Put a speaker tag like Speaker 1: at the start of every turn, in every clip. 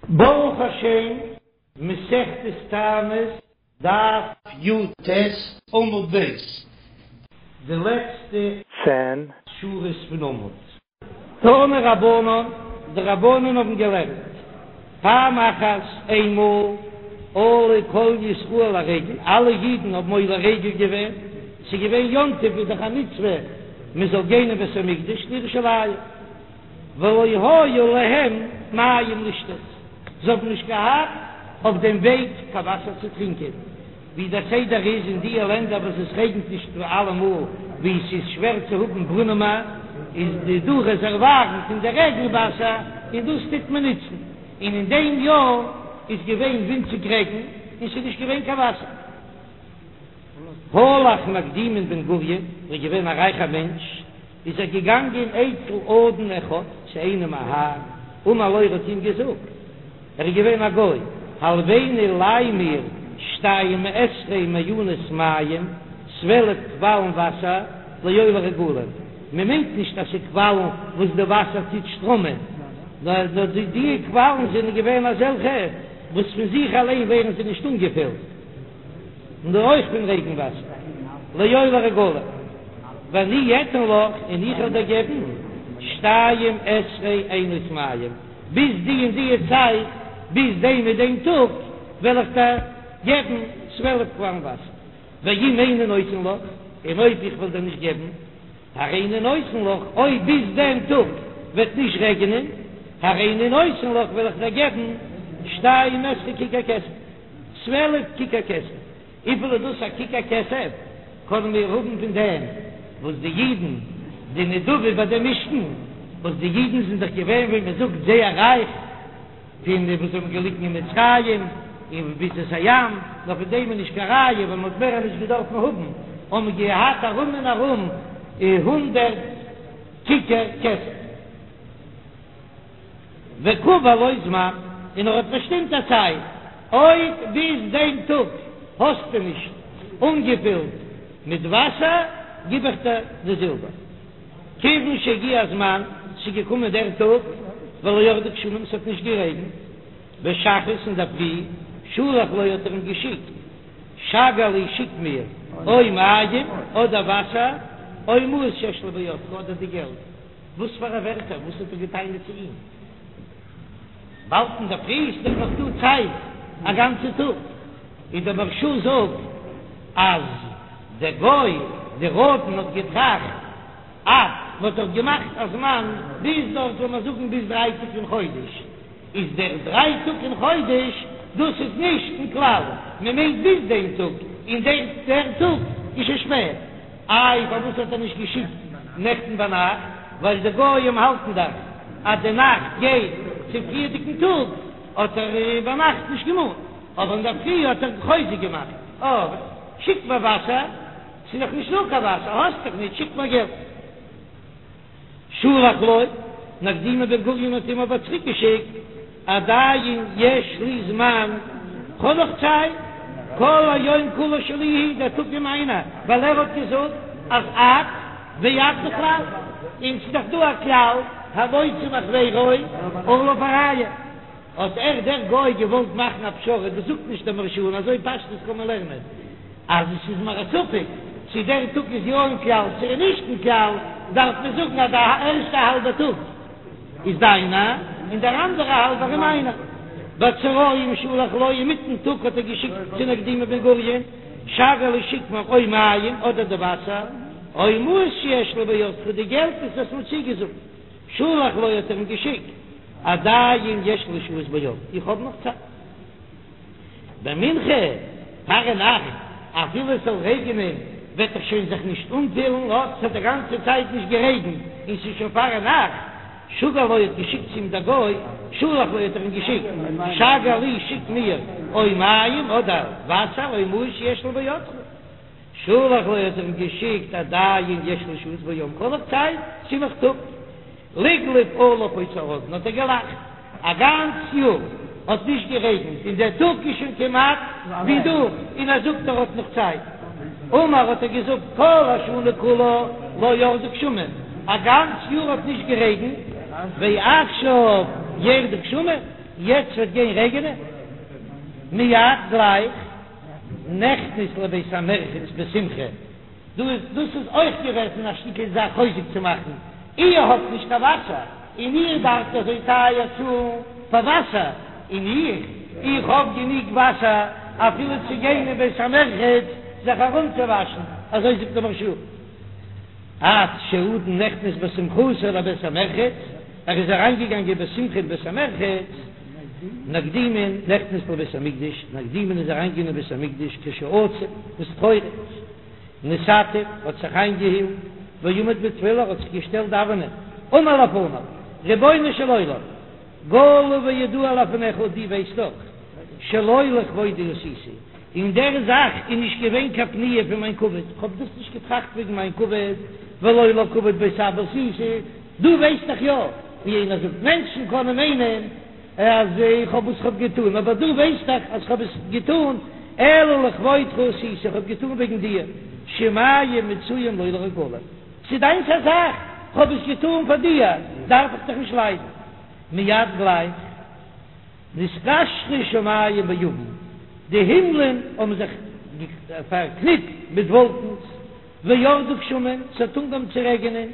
Speaker 1: ברוך השם, מסכת תענית, דף י"ט, עמוד ב', די לעצטע
Speaker 2: צען
Speaker 1: שורות פון עמוד. תנו רבנן, די רבנן האבן געלערנט, פעם אחת, איינמאל, עלו כל ישראל לרגל, אלע אידן האבן עולה רגל געווען, ס'איז געווען יום טוב איז דאך א מצוה מען זאל גיין אין בית המקדש לירושלים. ולא היו להם מים לשתות, זיי האבן נישט געהאט אויף דעם וועג קיין וואסער צו טרינקען, ווי דער סדר איז אין דיע לענדער וואס עס רעגנט נישט אלעמאל, ווי עס איז שווער צו האבן ברונעמען, איז די דא רעזערווארן פון די רעגן וואסער און דאס טוט מען נוצן, און אין דעם יאר איז געווען ווינציג רעגן און ס'איז נישט געווען קיין וואסער. הלך נקדימון בן גוריון, ער איז געווען א רייכער מענטש, איז ער געגאנגען אצל אדון אחד, צו איינעם א האר, אמר לו ער האט אים געזאגט, ער איז געווען א גוי, הלויני ליי מיר שתים עשרה מעיינות מים, 12 קוואלן וואסער, לעולי רגלים, מען מיינט נישט אז ס'איז קוואלן וואס די וואסער טוט שטראמען, נאר די קוואלן זענען געווען אזעלכע וואס פון זיך אליין ווערן זיי נישט אנגעפילט. נאר אויך פון רעגן וואסער, לעולי רגלים, ואני אתן לך, און איך וועל דיר געבן, שתים עשרה עינות מים, ביז די און די צייט, ביז דעם און דעם טאג, וועל איך דיר געבן 12 קוואלן וואסער, ואם איני נותן לך, און אויב איך וועל דיר נישט געבן, הריני נותן לך, אויב ביז דעם טאג וועט נישט רעגענען, הריני נותן לך, וועל איך דיר געבן, שתים עשרה ככר כסף. 12 כיכר כסף. וויפיל איז דאס א כיכר כסף? קענען מיר האבן פון דעם וואס די אידן, די נדבה ביי דעם משכן, וואס די אידן זענען דאך געווען ווי מען זאגט זייער רייך, פון די וואס האבן געליגן אין מצרים און ביצת הים, נאר פון דעם איז נישט קיין ראיה, ווייל מען האט מער נישט געדארפן האבן, האבן געהאט ארום און ארום הונדערט כיכר כסף. וקבע לו זמן, און ער האט באשטימט א צייט, אויב ביז דעם טאג האסטו נישט אנגעפילט מיט וואסער, גיב איך דיר די זילבער. כיוון שהגיע הזמן, ס'איז געקומען דער טאג, ולא ירדו גשמים, ס'האט נישט גערעגנט, בשחרית אינדערפרי, שלח לו האט ער אים געשיקט, שגר לי שיק מיר, או מים, אדער וואסער, או מעות שיש לי בידך, אדער די געלט. וואס פאר א ווערטער? וואס האט ער געטענה'ט צו אים? באלד אינדערפרי איז דאך נאך דא צייט א גאנצע טאג. און דער מהרש"א זאגט אז דער גוי דער אדון האט געטראכט אז מ'האט דאך געמאכט א זמן ביז דארט זאל מען זאגן ביז דריי טאג אין חודש, איז דער דריי טאג אין חודש דאס איז נישט אין כלל, מען מיינט ביז דעם טאג, און דער דער טאג איז שוין שפעט. איי פארוואס האט ער נישט געשיקט נעכטן ביינאכט, ווייל די גויים האלטן דאך אז די נאכט גייט צום פריערדיגן טאג, האט ער ביינאכט נישט געמאנט, אבער אינדערפרי האט ער חוזק געמאכט, אה שיק מיר וואסער, ס'איז נאך נישט דא קיין וואסער, האסט דאך נישט, שיק מיר געלט. שלח לו, נקדימון בן גוריון האט אים אבער צוריק געשיקט, עדיין יש לי זמן, כ'האב נאך צייט, כל היום כולו שלי הוא, דער טאג איז מיינער, ווייל ער האט געזאגט אז עד ועד בכלל, און ס'איז דאך דא א כלל, המוציא מחבירו עליו הראיה, האט ער דער גוי געוואלט מאכן א פשרה, דאס זאגט נישט דער מהרש"א און אזוי פשטות קען מען לערנען. אז עס איז מיר א ספק צו דער טאג איז יא אין כלל צו איז נישט אין כלל, דארף מען זאגן אז די ערשטע האלבע טאג איז דיינע און דער אנדערע האלבער איז מיינע. בצהריים שלח לו, אינמיטן טאג האט ער געשיקט צו נקדימון בן גוריון, שגר לי שיק מיר או מים אדער די וואסער, או מעות שיש לי בידך די געלט וואס האסט מיר צוגעזאגט, שלח לו האט ער אים געשיקט, עדיין יש לי שהות ביום, איך האב נאך צייט. במנחה פארנאכט, אפילו עס זאל רעגענען וועט דאך שוין זיך נישט אנפילן, אט ס'האט די גאנצע צייט נישט גערעגנט און ס'איז שוין פארנאכט, שגר לו האט געשיקט צו אים דער גוי, שלח לו האט ער אים געשיקט, שגר לי שיק מיר או מים אדער וואסער או מעות שיש לי בידך. שלח לו האט ער אים געשיקט עדיין יש לי שהות ביום כ'האב נאך צייט ס'איז נאך טאג. לגלג עליו אותו האדון האט ער געלאכט א גאנץ יאר האט נישט גערעגנט און דער טאג איז שוין כמעט ווי דורך און ער זאגט ער האט נאך צייט. אמר האט ער געזאגט כל השנה כולה לא ירדו גשמים א גאנץ יאר האט נישט גערעגנט ועכשיו ירדו גשמים. יעצט וועט גיין רעגענען? מיד גלייך נכנס לבית המרחץ בשמחה, דא איז דאס איז אויך געוועזן א שטיקל זאך חוזק צו מאכן, איר האט נישט קיין וואסער און איר דארפט אזוי טייער צאלן פאר וואסער, און איך, איך האב גענוג וואסער אפילו צו גיין אין בית המרחץ זיך ארומצואוואשן, אזוי זאגט דער מהרש"א. עד שהאדון נכנס בשמחתו לבית המרחץ, ער איז אריינגעגאנגען בשמחה אין בית המרחץ, נקדימון נכנס לבית המקדש, נקדימון איז אריינגעגאנגען אין בית המקדש כשעצוב, איז טרויעריג, נתעטף, האט זיך איינגעהילט, ועמד בתפילה, האט זיך געשטעלט דאווענען, אמר לפניו, רבונו של עולם, גלוי וידוע לפניך, דו ווייסט דאך, שלא לכבודי עשיתי, אין דער זאך איז נישט געווען קיין פניה פון מיין כבוד, כ'האב דאס נישט געטראכט וועגן מיין כבוד, ולא לכבוד בית אבא עשיתי, דו ווייסט דאך יא, ווי איינער זאגט, מענטשן קענען מיינען אז איך האב וואס כ'האב געטון, אבער דו ווייסט דאך אז כ'האב עס געטון אלא לכבודך עשיתי, כ'האב געטון וועגן דיר, שמים מצויים לא לרגלים, ס'איז דיינס א זאך, כ'האב עס געטון פאר דיר, דארף איך דיך נישט ליידן. מיד גלייך. נתקשרו שמים בעבים, די הימלען האבן זיך פארקניפט מיט וואלקנס, וירדו גשמים, ס'האט אנגעהויבן צו רעגענען,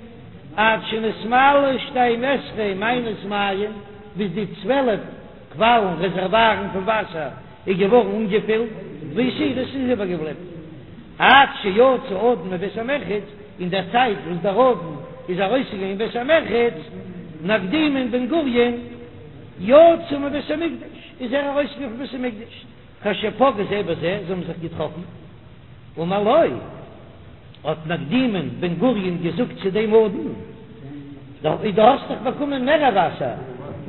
Speaker 1: עד שנתמלאו שתים עשרה מעיינות מים, ביז די צוועלף קוואלן, רעזערווארן פון וואסער, איז געווארן אנגעפילט, והותירו, ס'איז איבערגעבליבן, עד שיצא האדון מבית המרחץ, אין דער צייט וואס דער אדון איז ארויסגעגאנגען אין בית המרחץ, נקדימון בן גוריון, יצא מבית המקדש, איז ער ארויסגעגאנגען פון בית המקדש, כשפגעו זה בזה, זיי האבן זיך געטראפן, אמר לו, האט נקדימון בן גוריון געזאגט צו דעם אדון, דו האסט דאך באקומען מער וואסער,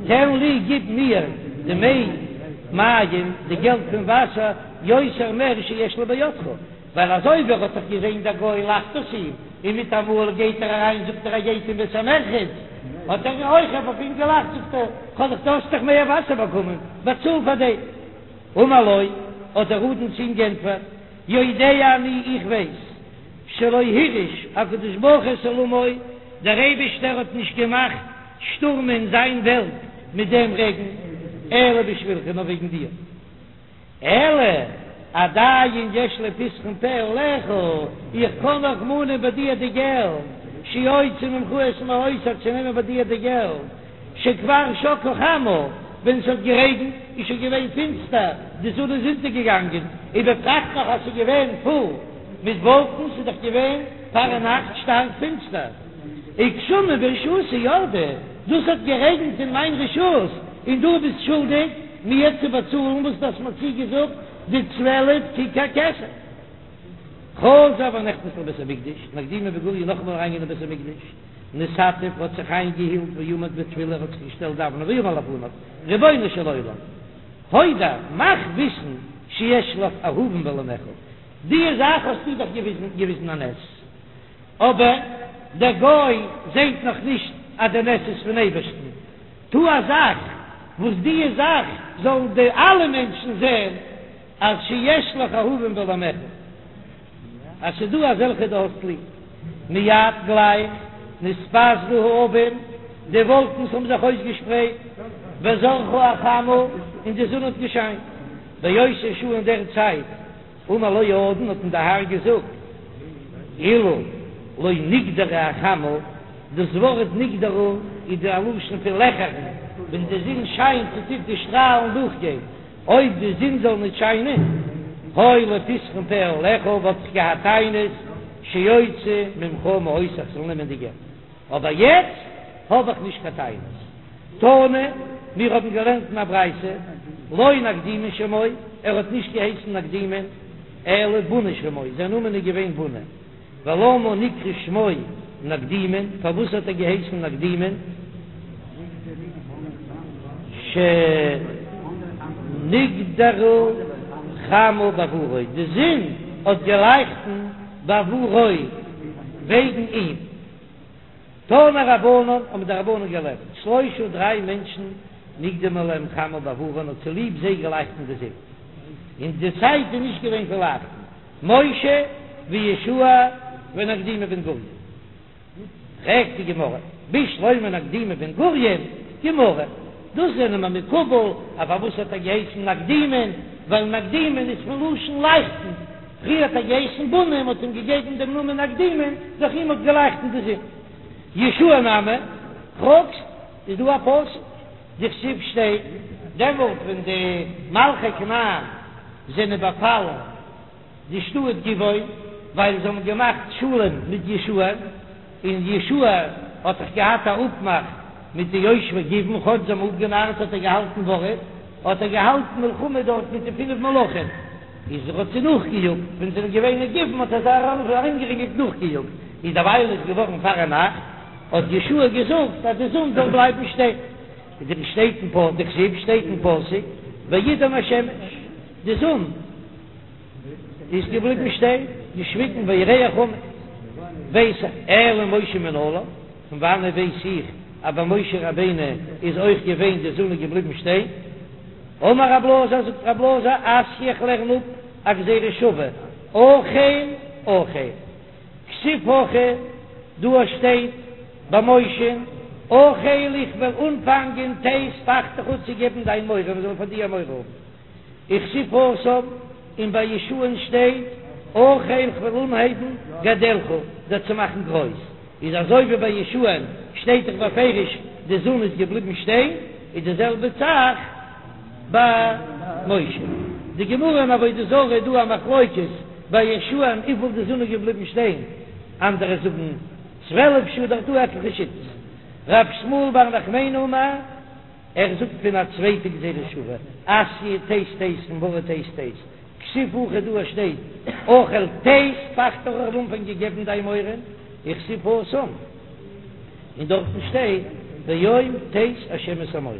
Speaker 1: תן לי, גיב מיר דמי מים, די געלט פון וואסער, יותר מער שיש לי בידך, ווייל אזוי ווי ער האט דאך געזען דער גוי לאכט אויס אים, און מיטאמאל גייט ער אריין זאגט ער ער גייט אין בית המרחץ, האט ער אויך אויף אים געלאכט זאגט ער, כ'האב דאך דו האסט דאך מער וואסער באקומען, באצאל פאר דעם. אמר לו, האט דער אדון צו אים גענטפערט, יודע אני איך ווייס, שלא הרעיש הקדוש ברוך הוא את עולמו, דער אייבישטער האט נישט געמאכט שטורמען זיין וועלט מיט דעם רעגן, אלא בשבילך נאר וועגן דיר. אלא עדיין יש לי פתחון פה עליך, איך קען נאך מאנען ביי דיר די געלט, שאוציא ממך את מעותי צו נעמען ביי דיר די געלט, שכבר שקעה חמה, ווען עס האט גערעגנט איז שוין געווען פינסטער, די זון איז אונטערגעגאנגען, ובפרט נאך אז ס'איז געווען פול מיט וואלקנס, איז דאך געווען פארנאכט שטארק פינסטער. וגשמים ברשותי ירדו, דאס האט גערעגנט אין מיין רשות, און דו ביסט שולדיג מיר צו באצאלן וואס דו האסט מיר צוגעזאגט די 12 כיכר כסף. חזר ונכנס לבית המקדש, נקדימון בן גוריון נאכאמאל אריינגיין אין בית המקדש, נתעטף האט זיך איינגעהילט ועמד בתפילה האט זיך געשטעלט דאווענען ואמר לפניו, רבונו של עולם, הודע, מאך וויסן שיש לך אהובים בעולמך, די זאך האסטו דאך געוויזן א נס, אבער דער גוי זעהט נאך נישט אז דער נס איז פון אייבערשטן, טו א זאך וואס די זאך זאלן די אלע מענטשן זעהן אז שיש לך אהובים בעולמך, אז ס'איז דא אזעלכע דו האסט ליב. מיד גלייך נתפזרו העבים, די וואלקנס האבן זיך אויסגעשפרייט, וזרחה החמה, און די זון האט געשיינט. באותה שעה אין דער צייט אמר לו האדון האט אים דער האר געזאגט, אילו לא נקדרה החמה, דאס ווארט נקדרה איז די א לשון פון לעכערן, ווען די זון שיינט און טוט די שטראלן דורכגיין, אויב די זון זאל נישט שיינען, היה לי פתחון פה עליך, וואלט איך געהאט טענות, שאוציא ממך מעותי איך זאל נעמען די געלט, אבער יעצט האב איך נישט קיין טענות. תנא, מיר האבן געלערנט אין א ברייתא, לא נקדימון שמו, ער האט נישט געהייסן נקדימון, אלא בוני שמו, זיין נאמען איז געווען בוני. ולמה נקרא שמו נקדימון, פארוואס האט ער געהייסן נקדימון? שנקדרה חמה בעבורו, די זון האט געלייכטן בעבורו, וועגן אים. תנו רבנן, האבן די רבנן געלערנט, שלושה דריי מענטשן נקדמה להם חמה בעבורן האט צוליב זיי געלייכטן די זון, און די צייט איז נישט געווען פון לייכטן, משה ויהושע ונקדימון בן גוריון. פרעגט די גמרא, בשלמא נקדימון בן גוריון, גמרא. דאס זענען מיר מקובל, אז פארוואס האט ער געהייסן נקדימון, ווייל נקדימון איז פון לשון לייכטן, פריער האט ער געהייסן בוני, מ'האט אים געגעבן דעם נאמען נקדימון, דורך אים האט געלייכטן די זון. יהושע נמי, פרעגסט, איז דא א פסוק, דכתיב שטייט, דעמאלט ווען די מלכי כנען זענען באפאלן די שטאט גבעון, ווייל זיי האבן געמאכט שלום מיט יהושע, און יהושע האט דאך געהאט א אפמאך מיט די יושבי גבעון, כאטש זיי האבן אפגענארט האט ער געהאלטן ווארט, האט ער געהאלטן מלחמה דארט מיט די פינף מלכים, איז ער האט זיי נאכגעיאגט, ווען זיי זענען געווען אין גבעון האט ער זיי ארומגערינגלט נאכגעיאגט, איז דערווייל איז געווארן פארנאכט, האט יהושע געזאגט אז די זון זאל בלייבן שטיין, שטייט אין פ דכתיב שטייט אין פסוק וידם השמש, די זון איז געבליבן שטיין, געשוויגן והירח עמד, ווייס איך, אלא משה מנלן, פון וואנעט ווייס איך אז ביי משה רבינו איז אויך געווען די זון איז געבליבן שטיין? אמר רב אלעזר, זאגט רב אלעזר, אתיא איך לערן אפ א גזירה שווה, החל החל, כתיב הכא, דא שטייט ביי משה'ן, החל איך וועל אנפאנגען תת פחדך צו געבן דיין מורא, מען זאל פאר דיר מורא האבן. וכתיב התם, און ביי יהושע'ן שטייט, החל כ'וועל אנהייבן גדלך, דיר צו מאכן גרויס, איז אזוי ווי ביי יהושע'ן שטייט דאך בפירוש די זון איז געבליבן שטיין, איז די זעלבע זאך ביי משה. די גמרא אין עבודה זרה איז דא א מחלוקת ביי יהושע'ן וויפיל די זון איז געבליבן שטיין, אנדערע זאגן 12 שעה, דארט דא עטליכע שיטות. ר' שמואל בר נחמני אמר. ער זאגט פון א צווייטע גזירה שוה, אתיא תת תת פון ווארט תת תת, כתיב הכא דא שטייט החל תת פחדך כ'וועל אנפאנגען געבן דיין מורא, וכתיב התם, און דארטן שטייט ביום תת השם את האמורי.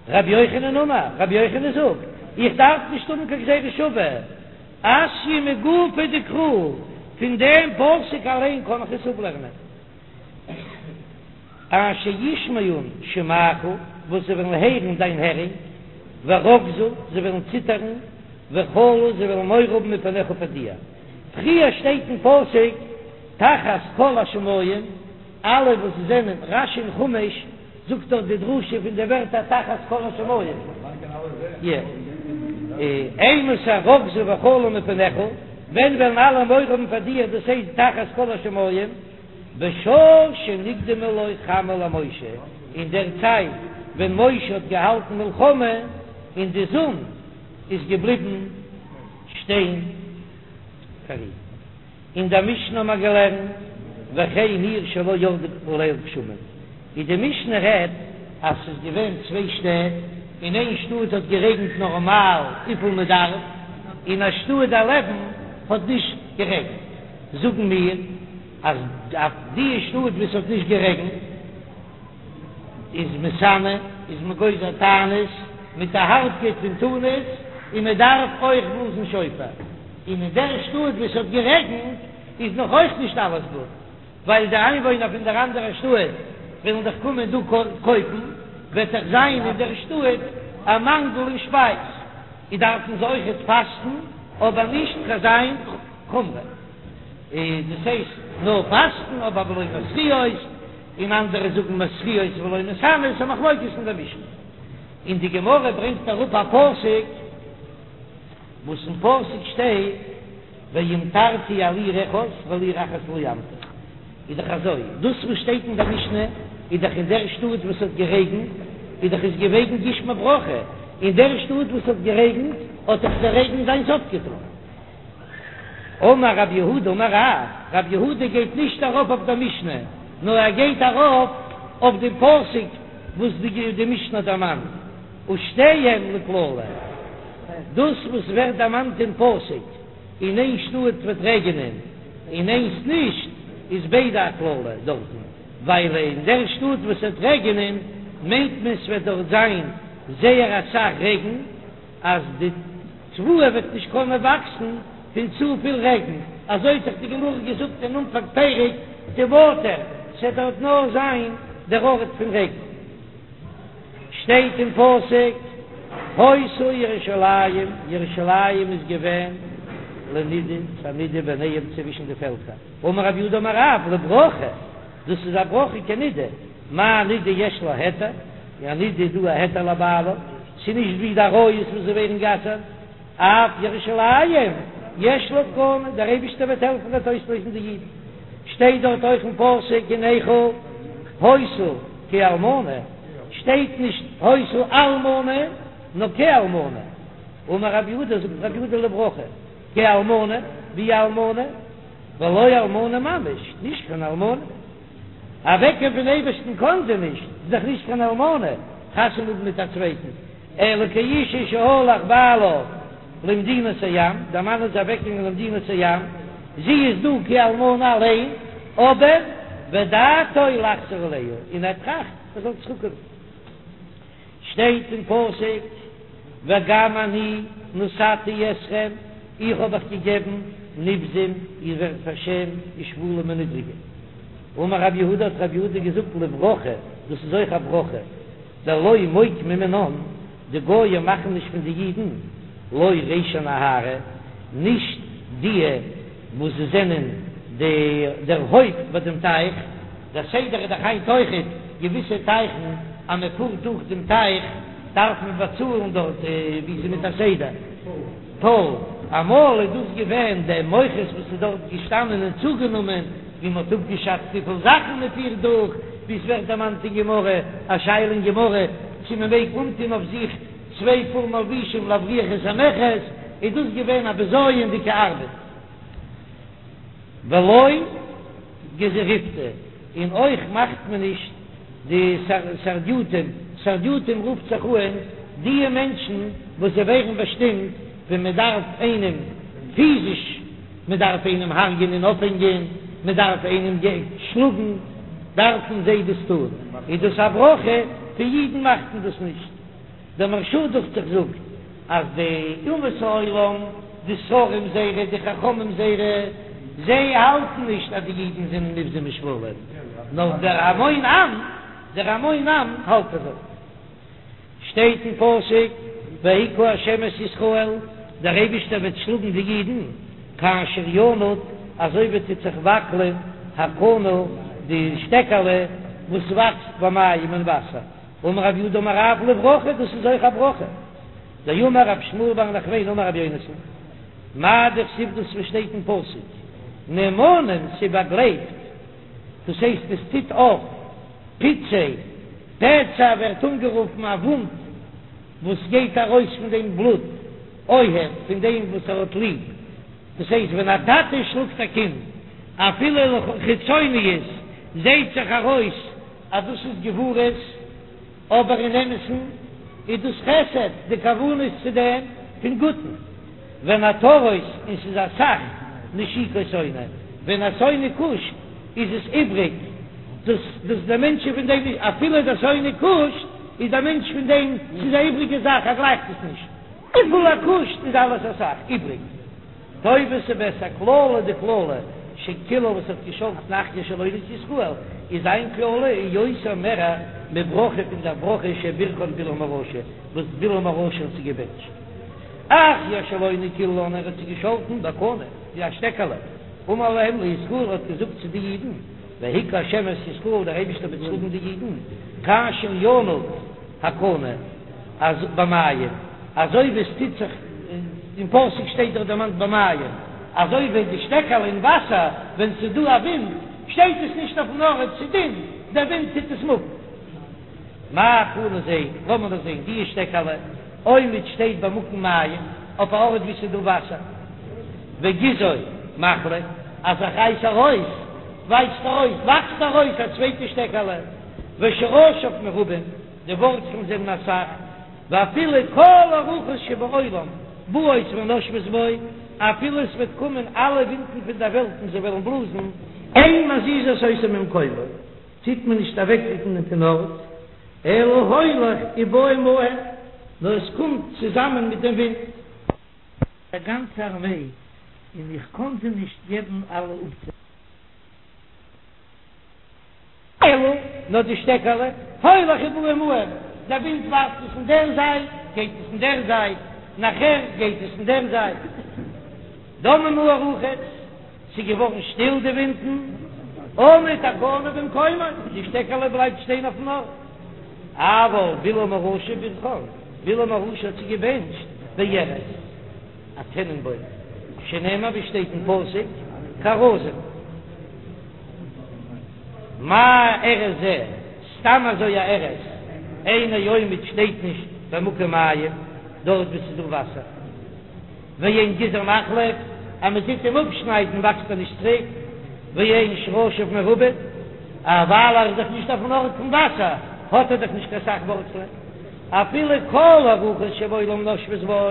Speaker 1: רבי יוחנן אמר, רבי יוחנן זאגט, איך דארף נישט האבן קיין גזירה שוה, אתיא מגופיה דקרא, פון דעם פסוק אליין קען איך עס אפלערנען. אשר ישמעון שמעך, וואס זיי וועלן הערן דיין הערונג, ורגזו, זיי וועלן ציטערן, וחלו, זיי וועלן מורא האבן מפניך פאר דיר. פריער שטייט אין פסוק, תחת כל השמים, אלע וואס זענען, רש"י אין חומש זאגט דארט די דרשה פון די ווערטער תחת כל השמים, אימתי רגזו וחלו מפניך, ווען וועלן אלע מורא האבן פאר דיר, דאס הייסט תחת כל השמים. בשעה שנקדמה לו חמה למשה, אין דער צייט ווען משה האט געהאלטן מלחמה און די זון איז געבליבן שטיין פאר אים. אין דער משנה האט מען געלערנט וכן עיר שלא ירדו עליה גשמים, ווי די משנה רעדט אז ס'איז געווען צוויי שטעט, אין איין שטאט האט גערעגנט נארמאל וויפיל מען דארף, אין א שטאט דערלעבן האט נישט גערעגנט. זאגן מיר אז אויף די שטאט וואו ס'האט נישט גערעגנט איז מתענה, איז מען גוזר תענית מיט א הארבקייט פון תענית, און מען דארף אויך בלאזן שופר, און אין דער שטאט וואו ס'האט גערעגנט איז נאך אויך נישט אלעס גוט, ווייל די איינוואוינער פון דער אנדערער שטאט וועלן דאך קומען דא קויפן, וועט דאך זיין אין דער שטאט א מאנגל אין שפייז, איז דארפן זיי אויכעט פאסטן, אבער נישט קיין אזא חומרא, איז דאס הייסט נאר פאסטן אבער ולא מתריעות, און אנדערע זאגן מתריעות ולא מתענות, א מחלוקת אין דער משנה. און די גמרא ברענגט אראפ א פסוק וואס אין פסוק שטייט והמטרתי על עיר אחת ועל עיר אחת לא אמטיר, איז דאך אזוי, דאס וואס שטייט אין דער משנה איז דאך אין דער שטאט וואס האט גערעגנט, איז דאך עס געוועגן גשמי ברכה, אין דער שטאט וואס האט גערעגנט האט דאך דער רעגן זיינס אפגעטאן. אמר רב יהודה אמר רב, רב יהודה גייט נישט ארויף אויף דער משנה, נאר ער גייט ארויף אויף דעם פסוק וואס די משנה האט דערמאנט, ושתיהן לקללה, דאס וואס ווערט דערמאנט אין פסוק, אין איין שטאט וועט רעגענען און איינס נישט, איז ביידע א קללה דארטן, ווייל אין דער שטאט וואס וועט רעגענען מיינט מען ס'וועט דארט זיין זייער אסאך רעגן, אז די תבואה וועט נישט קענען וואקסן פון צופיל רעגן, אזוי האט דאך די גמרא געזאגט אין אנפאנג פרק תמטר, ס'וועט דארט נאר זיין דער ארט פון רעגן. שטייט אין פסוק, היתה ירושלים, ירושלים איז געווען לנידה, פאר נידה ביניהם צווישן די פעלקער, אמר רב יהודה אמר רב, לברכה, דאס איז א ברכה כנידה, מה נידה יש לה היתר? א נידה איז דא א היתר לבעלה, ס'איז נישט ווי די עריות וואס זיי ווערן גע'אסר'ט, אף ירושלים יש לה תקנה, דער אייבישטער וועט העלפן וועט אויסלויזן די אידן, שטייט דארט אויך אין פסוק אין איכה היתה כאלמנה, שטייט נישט היתה אלמנה נאר כאלמנה, אמר רב יהודה זאגט רב יהודה לברכה כאלמנה ווי אלמנה, ולא אלמנה ממש, נישט קיין אלמנה. אוועקגיין פון אייבערשטן קאן זי נישט, זי איז דאך נישט קיין אלמנה, חתונה האבן מיט א צווייטן, אלא כאשה שהלך בעלה למדינת הים, דער מאן איז אוועקגעגאנגען למדינת הים, זי איז דא כאלמנה אליין, אבער ודעתו לחזור אליה, און ער טראכט ער זאל צוריקקומען. שטייט אין פסוק וגם אני נתתי אתכם, איך האב אייך געגעבן נבזים, איר ווערט פארשעמט, ושפלים און נידריגע. אמר רב יהודה, האט רב יהודה געזאגט לברכה, דאס איז אויך א ברכה, דלא מוקמי מינן, די גויים מאכן נישט פון די אידן, לא רישי נהרא, נישט דיע וואס זיי זענען די דער הויפט ביי דעם טייך, דער סדר איז דאך היינט אויכעט געוויסע טייכן אז מען פארט דורך דעם טייך דארף מען באצאלן דארט ווי ס'איז מיט א סדר טאל, אמאל איז דאס געווען דער מוכס וואס איז דארט געשטאנען און צוגענומען ווי מען האט אפגעשאצט וויפיל זאכן מען פירט דורך, ווי עס ווערט דערמאנט אין גמרא, א שאלה אין גמרא צו מען מעג אנטון אויף זיך צוויי פאר מלבישים להבריח את המכס, איז דאס געווען א בזיון'דיגע ארבעט. ולא גזיריפטי, און אויך מאכט מען נישט די סרדיוטים, סרדיוטים רופט זיך אן דיע מענטשן וואס זיי ווערן באשטימט ווען מען דארף איינעם פיזיש, מען דארף איינעם הרג'ענען און אויפהענגען, מען דארף איינעם שלאגן, דארפן זיי דאס טון, איז דאס א ברכה, פון אידן מאכט מען דאס נישט. דער מהרש"א דוכט זיך זאגט אז די אומות העולם, די שרים זייערע, די חכמים זייערע, זיי האלטן נישט אז די אידן זענען נבזים ושפלים, נאר דער המון עם, דער המון עם האלט אזוי. שטייט אין פסוק, והכה ה' את ישראל, דער אייבישטער וועט שלאגן די אידן, כאשר ינוד, אזוי ווי טוט זיך וואקלען הקנה, די שטעקעלע וואס וואקסט במים אין וואסער. אמר רב יהודה אמר רב לברכה, דאס איז אויך א ברכה. דאמר רב שמואל בר נחמני אמר רבי יונתן, מאי דכתיב דאס וואס שטייט אין פסוק, נאמנים ס'באגלייבט, דאס הייסט עס טוט אויף פצעי, פצע ווערט אנגערופן א וואונד וואס גייט ארויס פון דעם בלוט, אוהב, פון דעם וואס ער האט ליב, דאס הייסט ווען א טאטע שלאגט א קינד, אפילו לחיצוניות זעהט זיך ארויס אז דאס איז גבורות, אבער אין אמת'ן איז דאס חסד, די כוונה איז צו דעם פון גוטן, ונעתרות, און ס'איז אסאך נשיקות שונא, ווען א שונא קושט איז עס איבריג, דאס דאס דער מענטש איז פון דעם נישט, אפילו דער שונא קושט איז דער מענטש פון דעם, ס'איז א איבריגע זאך, ער גלייכט עס נישט. וויפיל ער קושט איז אלעס אסאך איבריג. טובה ס'בעסער קללה די קללה שקילל וואס האט געשאלטן אחיה השילוני את ישראל איז זיין קללה איז יותר מער מברכה פון דער ברכה שבירכן בלעם הרשע וואס בלעם הרשע האט זיי געבענטשט. אחיה השילוני קיללן ער האט זיי געשאלטן בקנה ווי א שטעקעלע אמר להם לישראל האט געזאגט צו די אידן והכה השם את ישראל דער אייבישטער וועט שלאגן די אידן כאשר ינוד הקנה אז במים, אזוי ווי עס טוט זיך, אין פסוק שטייט דאך דערמאנט במים, אזוי ווי די שטעקעלע אין וואסער, ווען ס'איז דא א ווינט, שטייט עס נישט אויפן ארט, ס'איז דין, דער ווינט טוט עס מופן. מה קנה זה, לאמיר דאס זען, די שטעקעלע, עומד שטייט במקום מים, אויף א ארט וואו ס'איז דא וואסער, וגזעו מחליף, אז איך רייס ארויס, ווייזט ארויס, וואקסט ארויס א צווייטע שטעקעלע, ושרשיו מרובים. די ווארצלן זענען אסאך, ואפילו כל הרוחות שבעולם באות ונושבות בו, אפילו עס וועט קומען אלע ווינטן פון דער וועלט און זיי וועלן בלאזן, אין מזיזות אותו ממקומו, טוט מען נישט אוועקרוקן פון ארט, אלא הולך ובא עמהן, נאר עס קומט צוזאמען מיט דעם ווינט. א גאנצע ארמעי, און איך קאן זיי נישט געבן אלע אפצאל. אלא נאר די שטעקעלע, הולך ובא עמהם, דער ווינט ווארפט עס אין דער זייט, גייט עס אין דער זייט, נאכער גייט עס אין דער זייט. דממו הרוחות, ס'איז געווארן שטיל די ווינטן, עמד הקנה במקומו, די שטעקעלע בלייבט שטיין אויפן ארט. אבל בלעם הרשע ברכן, בלעם הרשע האט זיי געבענטשט בארז, א טענענבוים, שנאמר ווי שטייט אין פסוק, כארזים. מה ארז זה, סתם אזוי א ארז, אינו עומד שטייט נישט במקום מים, דארט וואו ס'איז דא וואסער. ואין גזעו מחליף, אז מען טוט אים אפשניידן וואקסט ער נישט צוריק, ואין שרשיו מרובין, ווייל ער איז דאך נישט אויפן ארט פון וואסער, האט ער דאך נישט קיין סך ווארצלען. אפילו כל הרוחות שבעולם נושבות בו,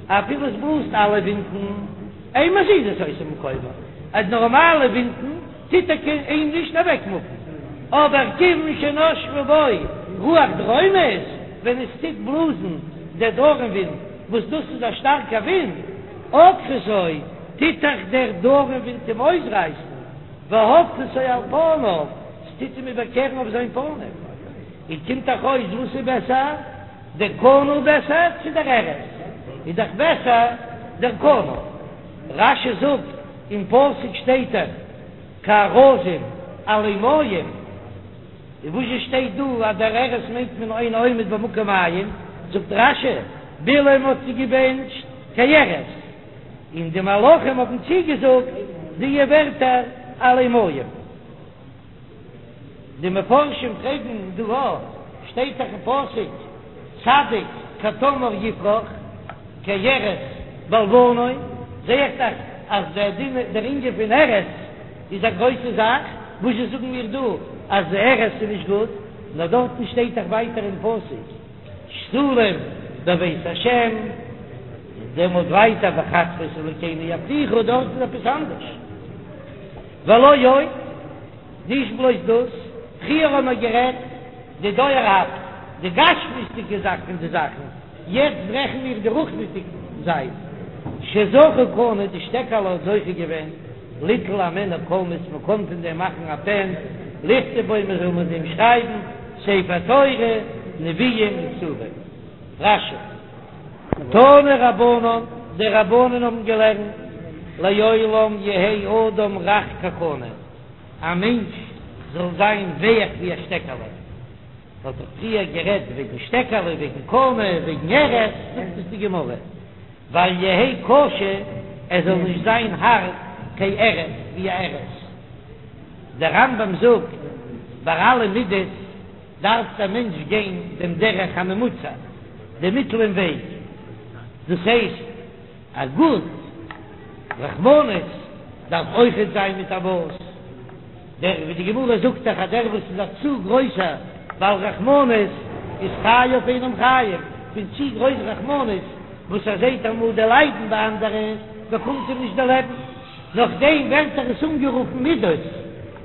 Speaker 1: אפילו עס בלאזט אלע ווינטן, אין מזיזות אותו ממקומו, אז נארמאלע ווינטן טוט ער אים נישט אוועקמופן, אבער כיוון שנשבה בו רוח דרומית, ווען עס טוט בלאזן דער דרום ווינט, וואס דאס איז א שטארקע ווינט, עוקרתו, טוט דאך דער דרום ווינט אים אויסרייסן, והופכתו על פניו, ס'טוט אים איבערקערן אויף זיין פנים. און קומט דאך אויס וואס איז בעסער, דער קנה בעסער צו דער ארז? איז דאך בעסער דער קנה. רש"י זאגט, אין פסוק שטייט דאך כארזים עלי מים, און וואס זשע שטייט דא אז דער ארז מיינט מען אינו עומד במקום מים, זאגט רש"י, בלעם האט זיי געבענטשט כארז, און די מלאכים האבן צוגעזאגט די ווערטער עלי מים. די מפרשים פרעגן דא אויך, שטייט דאך אין פסוק צדיק כתמר יפרח כארז בלבנון, זע איך דאך אז דער דין דער ענין פון ארז איז א גרויסע זאך, וואס זשע זאגן מיר דא אז ארז איז נישט גוט, נאר דארטן שטייט דאך ווייטער אין פסוק שתולים בבית השם, און דעמאלט ווייטער בחצרות אלוקינו יפריחו, דארט איז עפעס אנדערש. ולא עוד, נישט בלויז דאס, פריער האבן מיר גערעדט די דויערהאפט, די גשמיות'דיגע זאך פון די זאכן, יעצט רעכן מיר די רוחנית'דיגע זייט. שזכה קנה, די שטעקעלע האט זוכה געווען, ליטול הימנו קולמוס, מען קען פון דעם מאכן א פען, לכתוב בו, מען זאל מיט דעם שרייבן ספר תורה, נביאים און כתובים. רש"י. תנו רבנן, די רבנן האבן געלערנט, לעולם יהא אדם רך כקנה, א מענטש זאל זיין ווייך ווי א שטעקעלע. מ'האט דאך פריער גערעדט וועגן שטעקעלע, וועגן קנה, וועגן ארז, זאגט עס די גמרא, ואל יהא קשה, ער זאל נישט זיין הארט כארז, ווי א ארז. דער רמב"ם זאגט, ביי אלע מידות, דארף דער מענטש גיין דעם דרך הממוצע, דעם מיטלען וועג, דאס הייסט א גוט רחמנות דארף אויכעט זיין מיט א מאס, דער ווי די גמרא זאגט דאך אז דער וואס איז א צו גרויסער בעל רחמנות איז חייו אינם חיים, פון צו גרויס רחמנות וואס ער זעט אמאל די ליידן ביי אנדערע באקומט אים נישט די לעבן. נאכדעם ווערט דאך עס אנגערופן מידות,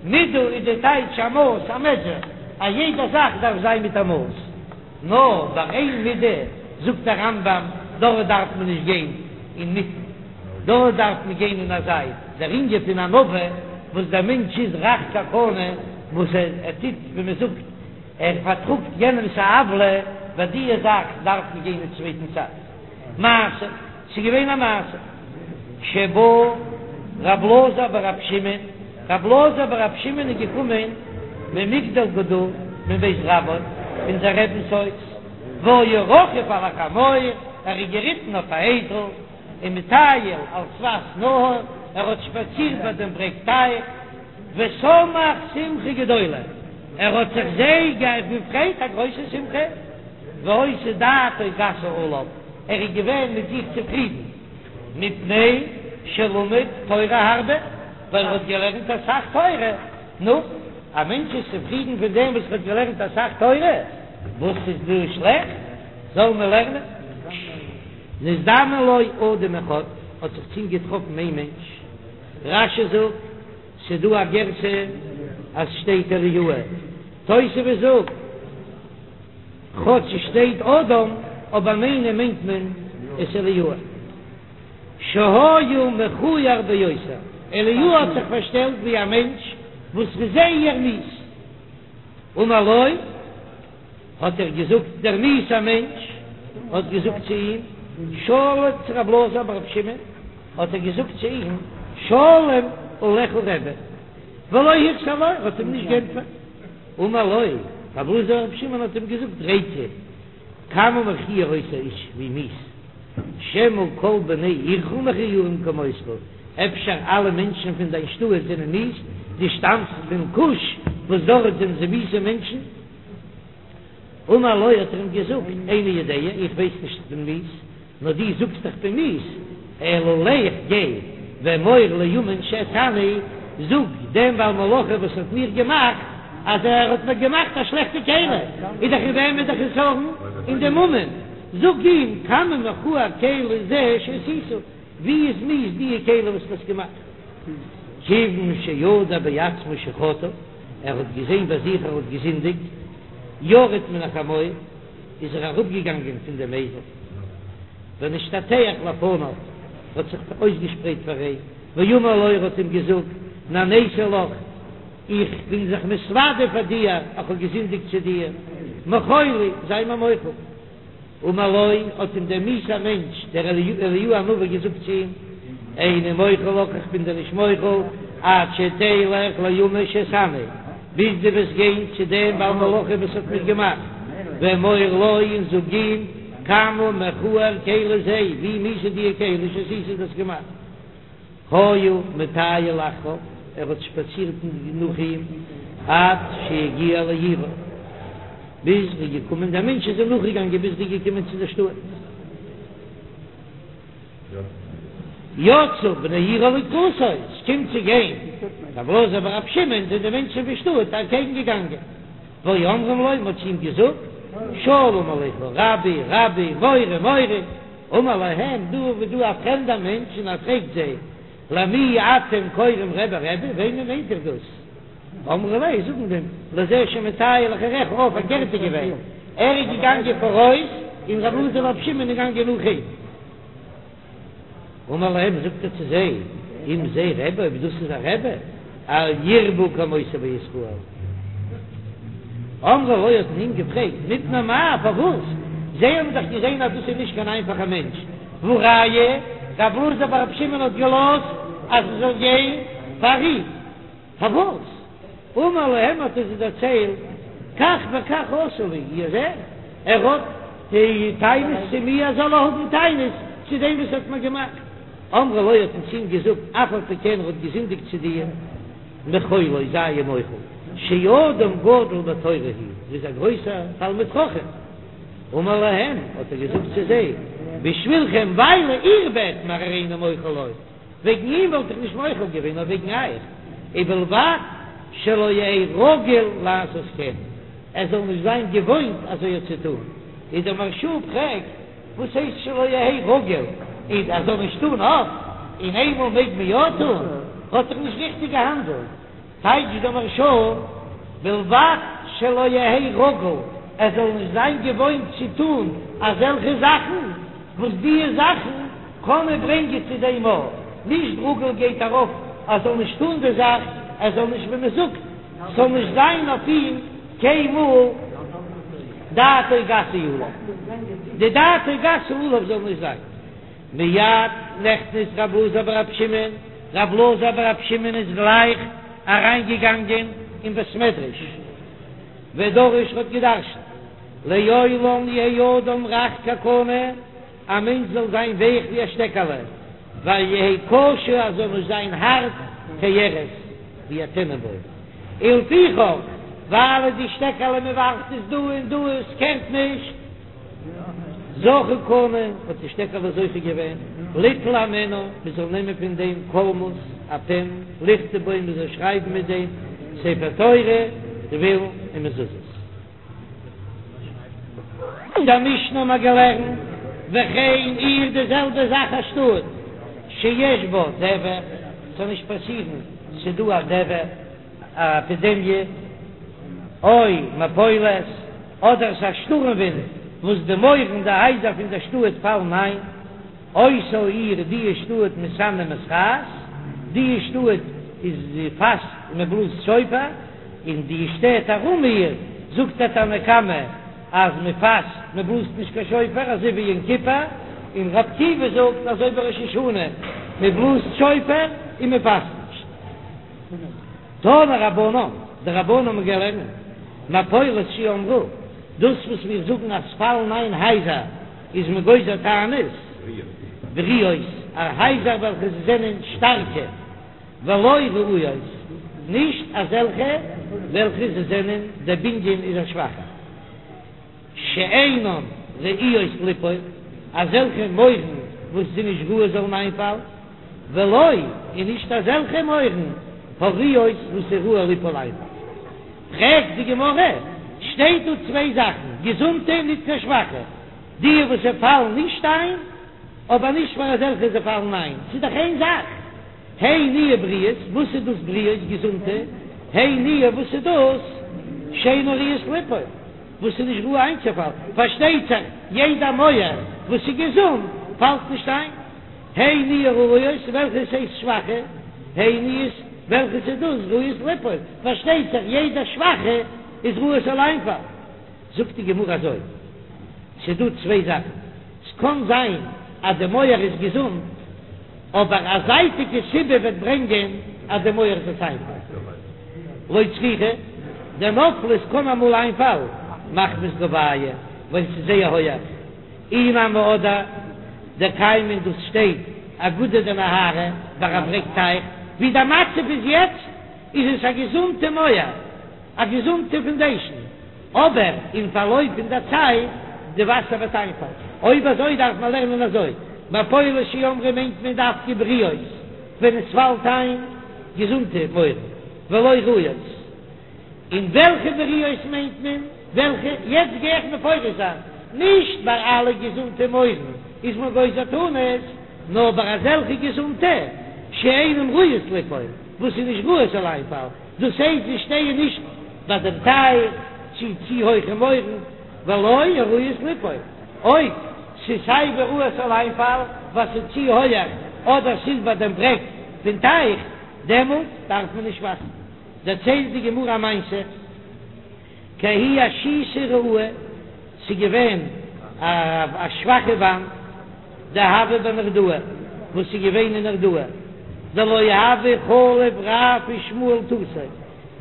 Speaker 1: מידה איז די טייטש א מאס, א מעזשער, א יעדע זאך דארף זיין מיט א מאס, נאר ביי איין מידה זאגט דער רמב"ם דארט דארף מען נישט גיין אינמיטן, דארט דארף מען גיין אין א זייט, דער ענין פון ענווה וואס דער מענטש איז רך כקנה, וואס ער טוט ווי מען זאגט ער פארטראגט יענעמס א עוולה, ביי דיע זאך דארף מען גיין אין צווייטן צד. מעשה, ס'איז געווען א מעשה, שבא רב אלעזר ברב שמעון, רב אלעזר ברב שמעון איז געקומען ממגדל גדור מבית רבו, פון זיין רבינ'ס הויז, והיה רוכב על החמור, ער איז געריטן אויף א אייזל, ומטייל על שפת נהר, ער האט שפאצירט ביי דעם ברעג טייך, ושמח שמחה גדולה, ער האט זיך זייער געפרייט א גרויסע שמחה, והיתה דעתו גסה עליו, ער איז געווען מיט זיך צופרידן, מפני שלמד תורה הרבה, ווייל ער האט געלערנט אסאך תורה, נו, א מענטש איז צופרידן פון דעם וואס ער האט געלערנט אסאך תורה, וואס איז דא שלעכט? זאל מען לערנען. נזדמן לו אדם אחד, האט זיך צו אים געטראפן איין מענטש, רש"י זאגט, ס'דא א גירסא אז שטייט אליהו, תוספות זאגט, כאטש ס'שטייט אדם, אבער מיינען מיינט מען עס אליהו. שהיה מכוער ביותר, אליהו האט זיך פארשטעלט ווי א מענטש וואס איז זייער מיאוס. אמר לו, האט ער געזאגט, דער מיאוס'ער מענטש האט געזאגט צו אים, שלום צו רב אלעזר ברב שמעון, האט ער געזאגט צו אים, שלום עליך רבי, ולא החזיר לו, ער האט אים נישט גענטפערט. אמר לו. רבי אלעזר ברבי שמעון האט אים געזאגט ריקא כמה מכוער אותו האיש ווי מיאוס, שמא כל בני עירך מכוערים כמותך, אפשר אלע מענטשן פון דיין שטאט זענען מיאוס, דו שטאמסט פון כוש וואס דארט זענען זיי מיאוסע מענטשן. אמר לו האט ער אים געזאגט, איני יודע, איך ווייס נישט איך בין מיאוס, נאר דו זאגסט איך בין מיאוס, אלא לך גיי ואמור לאומן שעשני, זאג דעם בעל מלאכה וואס האט מיך געמאכט, אז ער האט מיר געמאכט א שלעכטע כלי, איז דאך אין וועמען דער חסרון? אין דעם אומן, זאג אים כמה מכוער כלי זה שעשית, ווי איז מיאוס דיע כלי וואס דו האסט געמאכט? כיוון שידע בעצמו שחטא, ער האט געזען ביי זיך ער האט געזינדיגט, ירד מן החמור, איז ער אראפגעגאנגען פון דעם אייזל, ונשתטח לפניו, האט זיך אויסגעשפרייט פאר אים, ואמר לו, ער האט אים געזאגט, נעניתי לך, איך בין זיך מתוודה פאר דיר, איך האב געזינדיגט צו דיר, מחול לי, זיי מיר מוחל. אמר לו, האט אים דער מיאוסער מענטש, דער אליהו הנביא געזאגט צו אים, איני מוחל לך, איך בין דיר נישט מוחל, עד שתלך לאומן שעשני, ביז דו וועסט גיין צו דעם בעל מלאכה וואס האט מיך געמאכט, ואמור לו, און זאג אים, כמה מכוער כלי זה, ווי מיאוס איז דיע כלי שעשית דו האסט געמאכט. היה מטייל אחריו, ער האט שפאצירט נאך אים עד שהגיע לעירו, ביז ער איז געקומען, דער מענטש איז אים נאכגעגאנגען ביז ער איז געקומען צו דער שטאט. יצאו בני עירו לקראתו, עס קומט צו גיין רבי אלעזר ברבי שמעון, זענען די מענטשן פון שטאט אקעגן געגאנגען, והיו אומרים לו, מען האט צו אים געזאגט, שלום עליך רבי, רבי, מורה, מורה. אמר להם, דא איז דא א פרעמדער מענטש און ער פרעגט זיי, למי אתם קוראים רבי רבי, וועמען מיינט איר דאס? אמרו ליה, זאגן אים, לזה שמטייל אחריך, אה, פארקערט איז געווען, ער איז געגאנגען פאראויס און רבי אלעזר ברבי שמעון איז געגאנגען נאך אים. אמר להם, זאגט ער צו זיי, אם זה רבי, אויב דאס איז א רבי, אל ירבו כמותו בישראל. אמרו לו האט מען אים געפרעגט, מפני מה, פארוואס? זיי האבן דאך געזען אז דאס איז נישט קיין איינפאכער מענטש, והא ראיה, רבי אלעזר ברבי שמעון האט געלאזט אז מען זאל גיין פאר אים, פארוואס? אמר להם האט ער זיי דערציילט, כך וכך עשה לי, איר זעט, ער האט טענות צו מיר, זאל ער האבן טענות צו דעם וואס האט מיר געמאכט. אמרו לו האט מען צו אים געזאגט, אף על פי כן ער האט געזינדיגט צו דיר, מחול לו, זיי אים מוחל, שאדם גדול בתורה הוא, ער איז א גרויסער תלמיד חכם. אמר להם, האט ער געזאגט צו זיי, בשבילכם ווייל איר בעט מיר הריני מוחל לו, וועגן אים וואלט איך נישט מוחל געווען, נאר וועגן אייך, ובלבד שלא יהא רגיל לעשות כן, ער זאל נישט זיין געוואוינט אזוי צו טון. איז דער מהרש"א פרעגט, וואס הייסט שלא יהא רגיל? איז ער זאל נישט טון אפט, און איינמאל מעג מען יא טון? האט זיך נישט ריכטיג געהאנדלט. טייטשט דער מהרש"א, בלבד שלא יהא רגיל, ער זאל נישט זיין געוואוינט צו טון אזעלכע זאכן, וואס דיע זאכן קענען ברענגען צו דעם אויך, נישט רגיל גייט ארויף ער זאל נישט טון די זאך, ער זאל נישט ווי מען זאגט, ס'זאל נישט זיין אויף אים קיינמאל דעתו גסה עליו, די דעתו גסה עליו זאל נישט זיין. מיד נכנס רב אלעזר ברב שמעון, רב אלעזר ברב שמעון איז גלייך אריינגעגאנגען אין בית מדרש, ודרש האט געדרשנט, לעולם יהא אדם רך כקנה, א מענטש זאל זיין ווייך ווי א שטעקעלע, ואל יהא קשה ער זאל נישט זיין הארט כארז ווי א טענענבוים, ולפיכך ווייל די שטעקעלע מען ווארפט עס דא און דא עס קערט נישט, זכה קנה האט די שטעקעלע זוכה געווען ליטול הימנה מען זאל נעמען פון דעם קולמוס א פען לכתוב בו מען זאל שרייבן מיט דעם ספר תורה תפילין און מזוזות. אין דער משנה האבן מיר געלערנט, וכן עיר די זעלבע זאך א שטאט שיש בה דבר, ס'זאל נישט פאסירן ס'דא א דבר, א עפידעמיע, או מפולת, אדער ס'איז א שטורעם ווינט וואס די מויערן די הייזער פון דער שטאט פאלן איין, אותה העיר די שטאט מתענה ומתרעת, די שטאט איז פאסט און מען בלאזט שופר, און די שטעט ארום איר זאגט דער תנא קמא אז מען פאסט מען בלאזט נישט קיין שופר אזוי ווי יום כיפור, און ר' עקיבא זאגט אזוי ווי ראש השנה מען בלאזט שופר און מען פאסט נישט. תנו רבנן, די רבנן האבן געלערנט. מפולת שאמרו, דאס וואס מיר זאגן אז פאלן איין הייזער איז מען גוזר תענית, בריאות, א הייזער וועלכע זענען שטארקע, ולא רעועות, נישט אזעלכע וועלכע זיי זענען, דער בנין איז א שוואכער. שאינן ראויות ליפול, אזעלכע מויערן וואס זענען נישט ראוי זאלן איינפאלן, ולא, און נישט אזעלכע מויערן הראויות וואס איז ראוי ליפול איינפאלן. פרעגט די גמרא, שטייט דא צוויי זאכן, געזונטע און ניט קיין שוואכע, די וואס זיי פאלן נישט איין, אבער נישט פאר אזעלכע זיי פאלן איין, ס'איז דאך איין זאך. הי נינהו בריאות, וואס איז דאס בריאות, געזונטע? הי נינהו, וואס איז דאס שאינן ראויות ליפול, וואס איז נישט ראוי איינצופאלן? פארשטייט זיך יעדע מויער וואס איז געזונט פאלט נישט איין. הי נינהו רעועות, וועלכעס הייסט שוואכע? הי נינהו, וועלכעס איז דאס ראויות ליפול? פארשטייט זיך יעדע שוואכע איז ראוי ס'זאל איינפאלן. זאגט די גמרא אזוי, ס'איז דא צוויי זאכן, ס'קען זיין אז די מויער איז געזונט, אבער א זייטיגע סיבה וועט ברענגען אז די מויער זאל איינפאלן. לא צריכא, דנפלה, ס'קען אמאל איינפאלן מחמת גובהיא, ווייל ס'איז זייער הויעך, אי נמי אדער דקיימא דאס שטייט אגודא דנהרא ביי א ברעג טייך, ווי דער מצב איז יעצט איז עס א געזונטע מויער. א געזונטע פאנדעישן, אבער אין פארלויף פון דער צייט די וואסער וועט איינפאלן. אויב אזוי דארף מען לערנען אזוי, מפולת שאמרו מיינט מען דווקא בריאות ווען עס פאלט איין געזונטע מויערן, ולא רעועות. און וועלכע בריאות מיינט מען? וועלכע? יעצט גיי איך מפרש זיין, נישט ביי אלע געזונטע מויערן איז מען גוזר תענית, נאר ביי אזעלכע געזונטע שאינן ראויות ליפול, וואס איז נישט ראוי ס'זאל איינפאלן. דאס הייסט זיי שטייען נישט ביי דעם טייך צו צו הויכע מויערן, ולא הראויות ליפול, אויב ס'איז סיי ווי ראוי ס'זאל איינפאלן ווייל ס'איז צו הויעך אדער ס'איז ביי דעם ברעג פון טייך, דעמאלט דארף מען נישט פאסטן. דערציילט די גמרא א מעשה. כי ההיא אשיתא רעועה, ס'איז געווען א שוואכע וואנט, דהוה בנהרדעא, וואס איז געווען אין נהרדעא, דלא הוו חליף רב ושמואל תותי,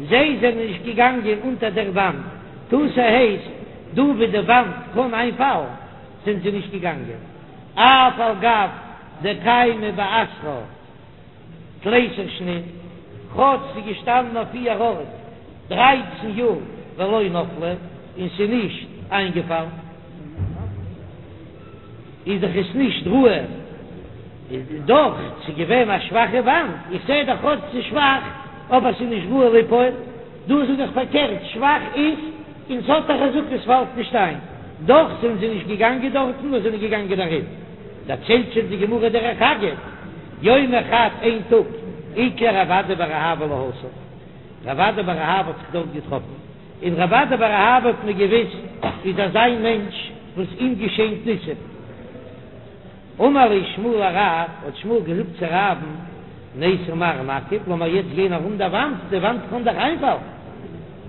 Speaker 1: זיי זענען נישט געגאנגען אונטער דער וואנט, תותי הייסט דא ווי די וואנט קען איינפאלן, זענען זיי נישט געגאנגען, אף על גב דקיימא באתרה. תליסר שנין, כאטש ס'איז געשטאנען אויף איר ארט דרייצן יאר ולא נפלה און ס'איז נישט איינגעפאלן, איז דאך עס נישט ראוי, איז דאך ס'איז געווען א שוואכע וואנט, איך זע דאך כאטש ס'איז שוואך אבער ס'איז נישט ראוי ליפול, דא זאג איך פארקערט, שוואך איז און ס'האט א חזקה ס'פאלט נישט איין, דאך זענען זיי נישט געגאנגען דארטן נאר זענען געגאנגען ארום. דערציילט שוין די גמרא דרך אגב, יומא חד איין טאג, איקלע רב אדא בר אהבה להתם, רב אדא בר אהבה האט זיך דארט געטראפן, און רב אדא בר אהבה האט מען געוויסט איז אזא מענטש וואס אים געשענט ניסים. אמר ליה שמואל לרב, האט שמואל געזאגט צו רב'ן, ניתי מר נקיף, לאמיר יעצט גיין ארום דער וואנט, די וואנט קען דאך איינפאלן.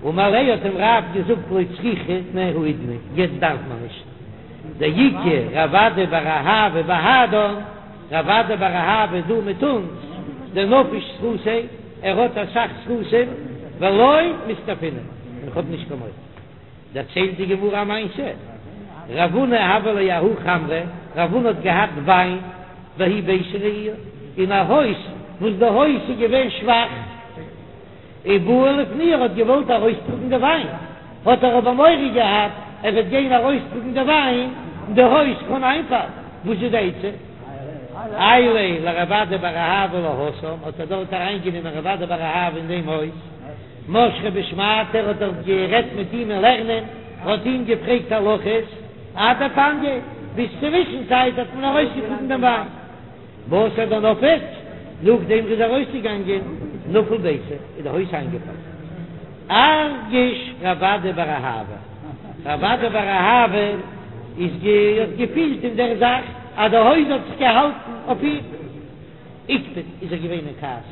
Speaker 1: אמר ליה האט אים רב געזאגט לא צריכנא האידנא, יעצט דארף מען נישט. דאיכא רב אדא בר אהבה בהדן, רב אדא בר אהבה איז דא מיט אונז, דנפיש זכותיה, ער האט אסאך זכותים, ולא מסתפינא, און כ'האב נישט קיין מורא. דערציילט די גמרא א מעשה, רב הונא הוה ליה ההוא חמרא, רב הונא האט געהאט וויין, בההיא ביתא רעיעא, אין א הויז וואס די הויז איז געווען שוואך, ובעי לפנויי ער האט געוואלט ארויסטראגן די וויין, האט ער אבער מורא געהאט ער וועט גיין ארויסטראגן די וויין און די הויז קען איינפאלן, וואס איז די עצה? עייליה לרב אדא בר אהבה להתם, האט ער דארט אריינגענומען רב אדא בר אהבה אין דעם הויז, משכיה בשמעתיה, ער האט דארט גערעדט מיט אים אין לערנען, האט אים געפרעגט הלכות, עד דפנייה, ביז צווישן צייט האט מען ארויסגעטראגן דעם וויין. בתר דנפק, נאכדעם ר'איז ארויסגעגאנגען, נפל ביתא, איז די הויז איינגעפאלן. ארגיש רב אדא בר אהבה, רב אדא בר אהבה איז גע האט געפילט אין דער זאך אז די הויז האט זיך געהאלטן אויף אים. איקפד איז ער געווען אין כעס.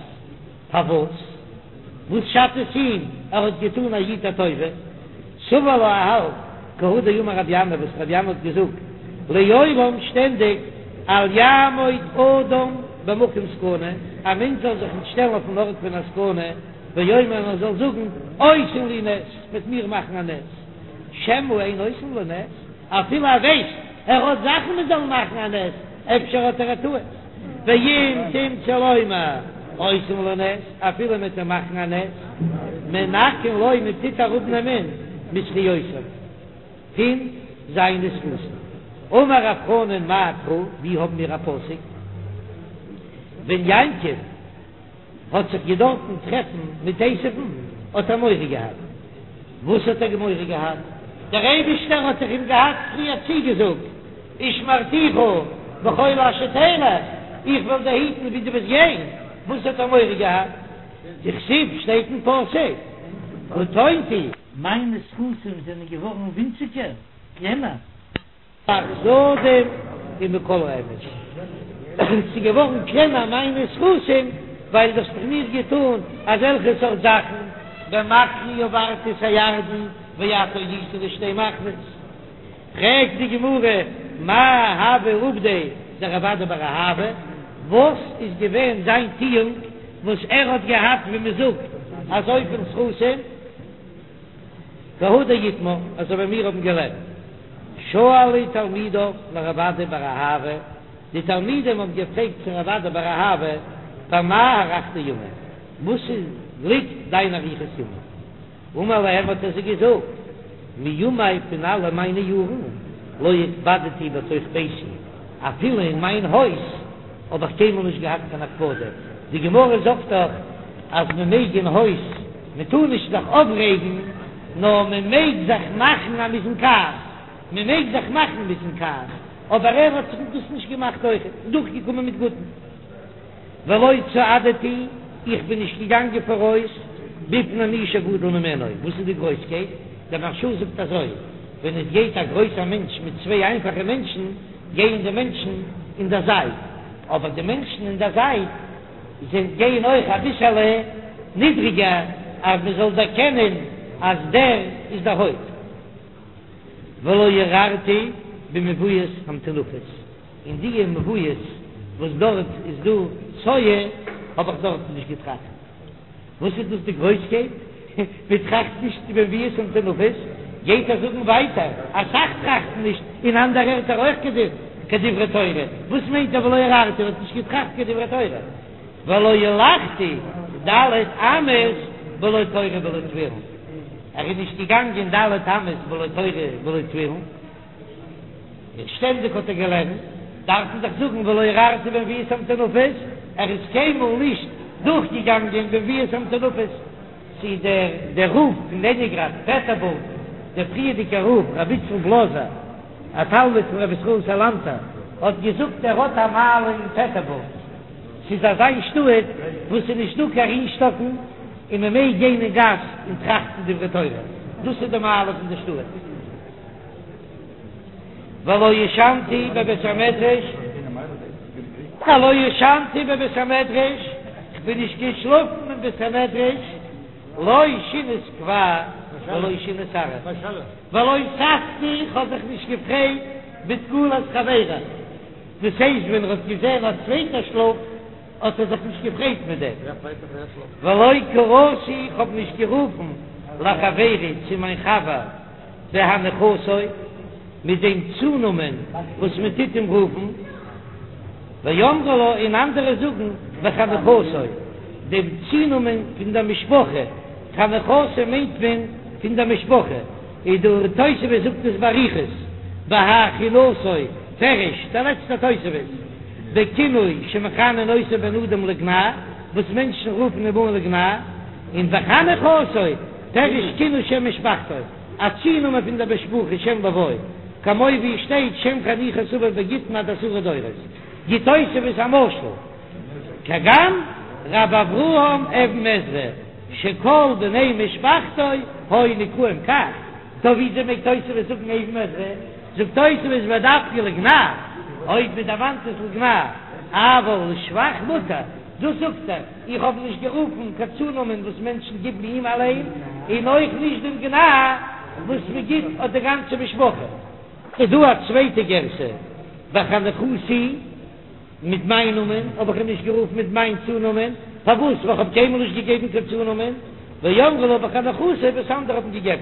Speaker 1: פארוואס? וואס שאדט עס אים? ער האט געטאן א איד א טובה. סבר לה ער האלט כי הא דאמר רבי ינאי וואס רבי ינאי האט געזאגט לעולם שטענדיג אל יעמוד אדם במקום סכנה, א מענטש זאל זיך נישט שטעלן אויפן ארט פון א סכנה. ויאמר און ער זאל זאגן, עושין לי נס, מ'וועט מיר מאכן א נס, שמא אין עושין לו נס, אפילו ער ווייסט ער האט זאכן מען זאל מאכן א נס, אפשר האט ער א טעות, ואם תמצא לומר עושין לו נס, אפילו מען טוט מאכן א נס, מנכין לו מען טוט אראפנעמען מזכיותיו פון זיינע זכותים. אמר רב חנן מאי קרא, ווי האבן מיר א פסוק ווען יעקב האט זיך געדארפן טרעפן מיט עשו'ן, האט ער מורא געהאט. וואס האט ער מורא געהאט? דער אייבישטער האט דאך אים געהאט פריער צוגעזאגט, ושמרתיך בכל אשר תלך, איך וועל דיר היטן ווי דו וועסט גיין. וואס האט ער מורא געהאט? דכתיב, שטייט אין פסוק, קטנתי.
Speaker 2: מיינע זכותים זענען געווארן ווינציגער, קלענער.
Speaker 1: מהחסדים ומכל האמת, ס'איז געווארן קלענער מיינע זכותים ווייל דו האסט דאך מיר געטאן אזעלכע סארט זאכן, במקלי עברתי את הירדן ואתה היית לשתי מחנות. פרעגט די גמרא, מאי הוה עובדיה דרב אדא בר אהבה, וואס איז געווען זיין טואונג וואס ער האט געהאט ווי מ'זאגט אזויפיל זכותים? כי הא דאיתמר, אזוי ווי מיר האבן געלערנט, שאלו תלמידיו לרב אדא בר אהבה, די תלמידים האבן געפרעגט צו רב אדא בר אהבה, במה הארכת ימים, וואס איז ליגט דיין אריכות ימים? אמר להם האט ער זיי געזאגט, מימי פון אלע מיינע יארן, לא הקפדתי בתוך ביתי, אפילו אין מיין הויז האב איך קיינמאל נישט געהאט קיין הקפדה, די גמרא זאגט דאך אז מען מעג אין הויז, מען טאר נישט זיך אויפרעגן, נאר מען מעג זיך מאכן אז מען איז אין כעס, מען מעג זיך מאכן מען איז אין כעס, אבער ער האט זיך דאס נישט געמאכט אויך, דורכגעקומען מיט גוטן. ולא צעדתי, איך בין נישט געגאנגען פאראויס, בפני מי שגדול ממנו, וואס איז די גרויסקייט? דער מהרש"א זאגט אזוי, ווען עס גייט א גרויסער מענטש מיט צוויי איינפאכע מענטשן, גייען די מענטשן אין דער זייט, אבער די מענטשן אין דער זייט זיי גייען אויך אביסעלע נידריגער אז מען זאל דערקענען אז דער איז דער הויפט. ולא הרהרתי במבואות המטונפות, אין די מבואות וואס דארט איז דא צואה האב איך דארטן נישט געטראכט. וואס איז דאס די גרויסקייט? מען טראכט נישט במבואות המטונפות, גייט ער זאגן ווייטער, אסאך טראכטן נישט אין אנדערע ערטער אויך קיין דברי תורה, וואס מיינט ער ולא הרהרתי, ער האט נישט געטראכט קיין דברי תורה, ולא הלכתי ד' אמות בלא תורה בלא תפילין, ער איז נישט געגאנגען ד' אמות בלא תורה בלא תפילין. און שטענדיג האט ער געלערנט, דארף מען דאך זאגן ולא הרהרתי במבואות המטונפות, ער איז קיינמאל נישט דורכגעגאנגען במבואות המטונפות. צו דער דער רב פון לענינגראד, פעטערבורג, דער פריערדיגער רב, רבי איצל בלאזער, א תלמיד פון רבי ישראל סאלאנטער, האט געזאגט ער האט א מעלה אין פעטערבורג, ס'איז אזא שטאט וואס ס'איז נישט דא קיין רינשטאקן און מ'מעג גיין אין גאס און טראכטן דברי תורה, דאס איז די מעלה פון די שטאט. ולא ישנתי בבית המדרש, ולא ישנתי בבית המדרש, כ'בין נישט געשלאפן אין בית המדרש, לא שינת קבע ולא שינת עראי, ולא ששתי, כ'האב זיך נישט געפרייט בתקלת חברי, דאס הייסט ווען ער האט געזען א צווייטער שלאפט האט ער זיך נישט געפרייט מיט דעם, ולא קראתי, כ'האב נישט גערופן לחברי צו מיין חבר. בהניחתו, מיט דעם צונאמען וואס מען טוט אים רופן, ואמרי לה, און אנדערע זאגן בחניכתו, דעם צונאמען פון דער משפחה, חניכתו מיינט מען פון דער משפחה, און דער תוספות זאגט עס באריכות, בהכינתו, פירוש, דער לעצטער תוספות, בכינוי שמכנין אותו בני אדם לגנאי, וואס מענטשן רופן אים אן לגנאי, און בחניכתו, פירוש כינוי שם משפחתו, א צונאמען פון דער משפחה שם לווי, כמו ווי עס שטייט שם חניכת אביו בגיטין עד עשרה דורות, גיט תוספות א משל, כגון ר' אברהם אבן עזרא שכל בני משפחתו היו נקראים כך, טא וויאזוי מעג תוספות זאגן אבן עזרא, זאגט תוספות ודווקא לגנאי, אויב מען דערמאנט עס לגנאי, אבל לשבח מותר. דאס זאגט ער, איך האב נישט גערופן קיין צונאמען וואס מענטשן גיבן אים אליין, און אויך נישט דעם גנאי וואס מען גיבט אויף די גאנצע משפחה. איז דא א צווייטע גירסא, בחניכתי, מיט מיין נאמען האב איך אים נישט גערופן מיט מיין צונאמען, פארוואס? ווייל כ'האב קיינמאל נישט געגעבן קיין צונאמען, ואמרי לה בחניכתא וואס אנדערע האבן געגעבן.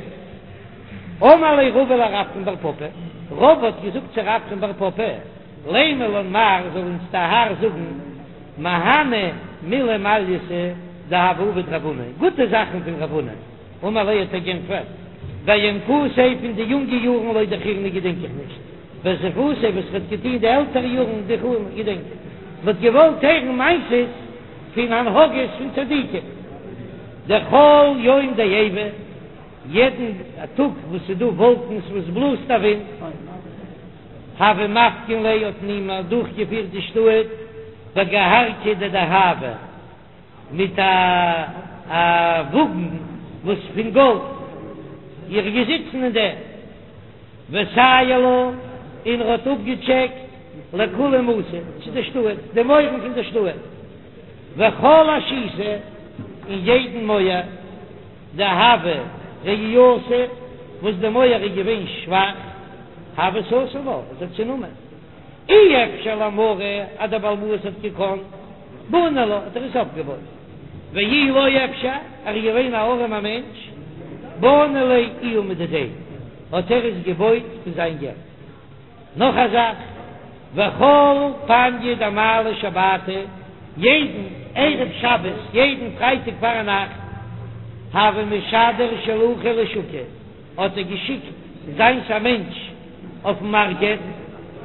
Speaker 1: אמר ליה רבא לרפרם בר פפא, רבא האט געזאגט צו רפרם בר פפא, לימא לן מר זאל אונז דער האר זאגן, מהני מילי מעלייתא דהוה עביד רב הונא, גוטע זאכן פון רב הונא, אמר ליה האט ער גענטפערט, בינקותיה פון די יונגע יארן לא דכירנא געדענק איך נישט, בזיפותיה וואס ר'האט געטון די עלטערע יארן דכירנא געדענק איך, מ'האט געוואלט הערן מעשות פון הנהגות פון צדיקים, דכל יום דעיבא, יעדן טאג וואס ס'איז דא וואלקנס וואס בלאזט א ווינט, הוה מפקין ליה האט מען אים אדורכגעפירט די שטאט בגהרכא דדהבא מיט א א וואגן וואס פון גאלד, ער איז געזיצן אין דעם, וסייר לה און ער האט אפגעטשעקט לכולי מתא צו די שטאט, די מויערן פון די שטאט, וכל אשיתא און יעדן מויער. דהוה רעיעתא, וואס די מויער איז געווען שוואך, הוה סתים לה, האט ער צונומען. אי אפשר למריה אז דער בעל הבית האט געקאנט, בני לה, האט ער עס אויפגעבויט. ואי לא אפשר, ער איז געווען א ארעמער מענטש, בני ליה איהו מדידיה, האט ער עס געבויט פון זיין געלט. נאך א זאך, וכל פניא דמעלי שבתא, יעדן ערב שבת, יעדן פרייטאג פארנאכט, הוה משדר שלוחא לשוקא, האט ער געשיקט זיינס א מענטש אויפן מארקעט,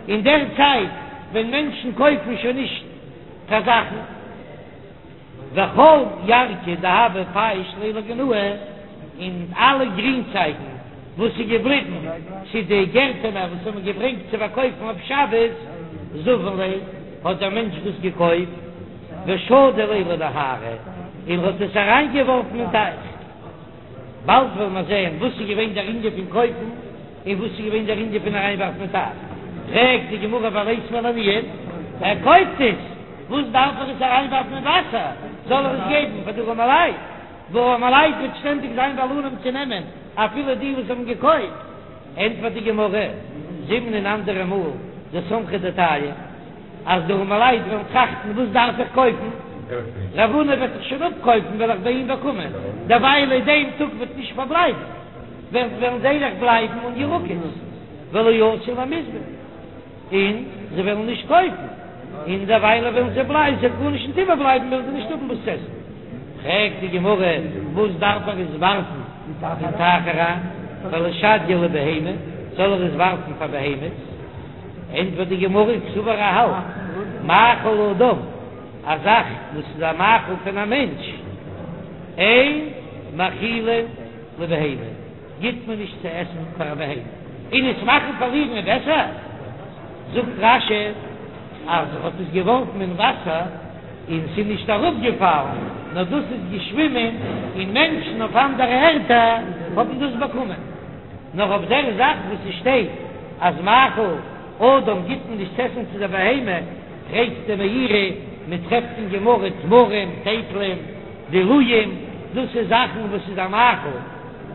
Speaker 1: אין דער צייט ווען מענטשן קויפן שוין נישט קיין זאכן. וכל ירקא דהוה פייש ליה לגינאי, און אלע גרינצייגן וואס איז געבליבן צו די גערטענער וואס האבן געברענגט צו פארקויפן אויף שבת, זבין ליה, האט דער מענטש דאס געקויפט, ושדי ליה לנהרא, און האט עס אריינגעווארפן אין טייך. באלד וועלן מיר זען וואס איז געווען דער ענין פון קויפן און וואס איז געווען דער ענין פון אריינווארפן אין טייך. פרעגט די גמרא וליתביה לעניים, ער קויפט עס, וואס דארף ער עס אריינווארפן אין וואסער, זאל ער עס געבן פאר די ארעמעלייט, וואו ארעמעלייט וועט שטענדיג זיין בעלנים צו נעמען אפילו די וואס האבן געקויפט. ענטפערט די גמרא, זימנין אנדערע מאל דסמכי דעתייהו. אז די ארעמעלייט וועלן טראכטן וואס דארף איך קויפן, רב הונא וועט זיך שוין אפקויפן וועל איך ביי אים באקומען, דערווייל אין דעם טאג וועט נישט פארבלייבן, וועלן זיי דאך בלייבן אן ירקות, ולא אתו למיזבן, און זיי וועלן נישט קויפן, און דערוויילע וועלן זיי בלייבן, ס'וועט גארנישט נישט איבערבלייבן וועלן זיי נישט האבן וואס צו עסן. פרעגט די גמרא, וואס דארף ער עס ווארפן אין טייך אריין, ולישדייה לבהמה, זאל ער עס ווארפן פאר בהמות? ענטפערט די גמרא, קסבר ער האלט מאכל אדם, א זאך וואס איז א מאכל פון א מענטש, אין מאכילין לבהמה, גיט מען נישט צו עסן פאר א בהמה, און עס מאכן פארלירן איז בעסער, זאגט רש"י אז ער האט עס געווארפן אין וואסער און ס'איז נישט אראפגעפאלן, נאר דאס איז געשווימען און מענטשן אויף אנדערע ערטער האבן דאס באקומען. נאר אויף דער זאך וואס עס שטייט אז מאכל אדם גיט מען נישט צו עסן צו דער בהמה, פרעגט דער מאירי, מען טרעפט אין גמרא תמרים, טייטלען, דלועים, דאס איז זאכן וואס איז א מאכל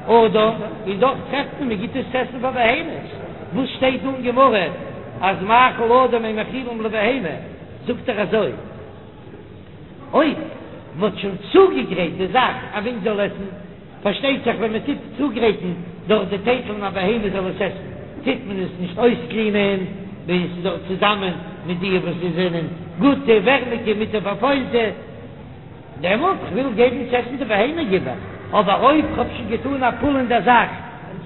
Speaker 1: אדם, און דאך טרעפט מען מען גיט עס צו עסן פאר בהמות, וואס שטייט דא אין גמרא אז מאכל אדם אין מאכילין לבהמה, זאגט ער אזוי. אויב מ'האט שוין צוגעגרייט די זאך א מענטש זאל עסן, פארשטייט זיך ווען מ'טוט צוגרייטן דורך די טייטלען א בהמה זאל עס עסן, טוט מען עס נישט אויסקלינען, ווען עס איז דארט צוזאמען מיט די וואס זיי זענען גוטע, ווערמיגע, מיט די פארפוילטע, דעמאלט כ'וויל געבן צו עסן די בהמה גיב איך, אבער אויב כ'האב שוין געטאן א פעולה אין דער זאך,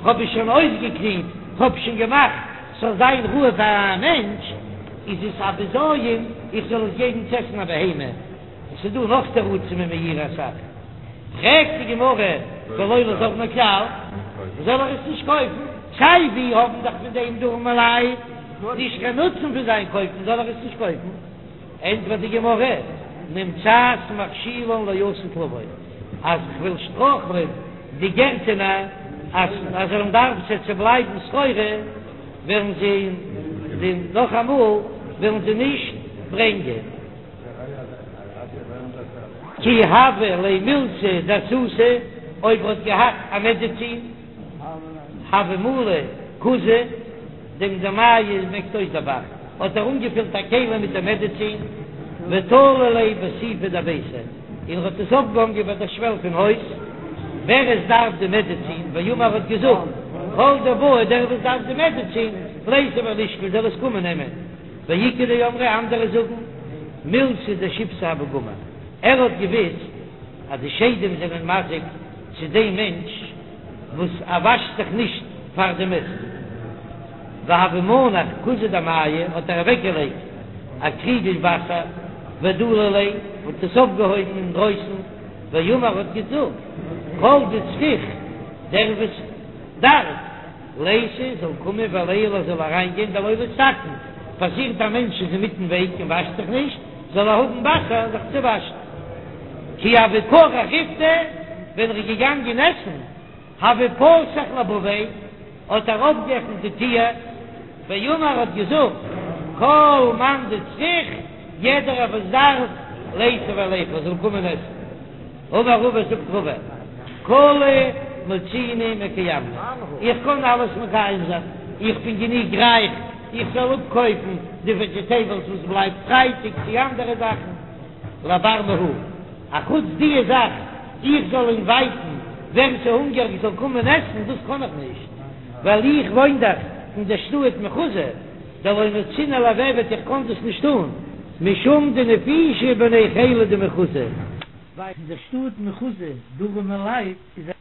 Speaker 1: כ'האב עס שוין אויסגעקלינט, כ'האב שוין געמאכט ס'זאל זיין ראוי פאר א מענטש, איז עס א בזיון איך זאל עס געבן צו עסן א בהמה? עס איז דא נאך תירוצים אין מאירי אסאך. פרעגט די גמרא ולא ליזבניה כלל, זאל ער עס נישט קויפן? סיי ווי האבן דאך פון דעם די ארעמעלייט נישט קיין נוצן פון זיין קויפן, זאל ער עס נישט קויפן? ענטפערט די גמרא, נמצאת מכשילן לעתיד לבוא, אז כ'וויל שטרויכלען די גערטענער אז אז זיי וועלן דארפן ס'וועט בלייבן סחורה, וועלן זיי נאכאמאל וועלן זיי נישט ברענגען. כי הוה ליה מילתא דאסותא, אויב ער האט געהאט א מעדעצין, הוה מלי כוזא, דעם דמיא מעקט אויס דער ב"ח, האט ער אנגעפילט א כלי מיט די מעדעצין, ותלי ליה בסיפא דביתיה. און ער האט עס אויפגעהאנגען ביי דער שוועל פון הויז, ווער עס דארף די מעדעצין, ואמר האט געזאגט, כל דבעי דער וואס דארף די מעדעצין, ליתי ולישקול זאל עס קומען נעמען, ואיכא דאמרי אנדערע זאגן, מילתא דשיבתא הוה גמיר, ער האט געוויסט אז די שדים זענען מזיק צו דעם מענטש וואס ער וואשט זיך נישט פאר דעם עסן. והוה מנח כוזא דמיא האט ער אוועקגעלייגט א קריגל וואסער ודלי ליה האט עס אויפגעהויבן אינדרויסן ואמר האט געזאגט כל דצריך דער וואס דארף ליתי זאל קומען וליעול ער זאל אריינגיין דלא ליתקן פאסירט א מענטש איז אינמיטן וועג און וואשט זיך נישט זאל ער האבן וואסער זיך צו וואשן כי הוה כרך ריפתא ווען ער איז געגאנגען עסן הוה פתח לבביה, האט ער אויפגעעפנט די טיר, ואמר האט געזאגט, כל מאן דצריך, יעדערער וואס דארף, ליתי וליכול, זאל קומען עסן. אמר רבא זאגט רבא, כולהו מצינא מקיימנא, איך קען אלעס מקיים זיין, איך בין גענוג רייך, איך זאל אפקויפן די וועדזשעטעיבלס וואס בלייבט פרייטאג צו אנדערע זאכן, לבר מהא. אחוץ דיע זאך איך זאל אינווייטן ווער ס'הונגעריג זאל קומען עסן, דאס קען איך נישט, ווייל איך וואוין דאך אין דער שטאט מחוזא, דלא מצינא למיעבד איך קען דאס נישט טון, משום דנפישי בני חילא דמחוזא.
Speaker 2: ווייל אין דער שטאט מחוזא די ארעמע לייט איז א.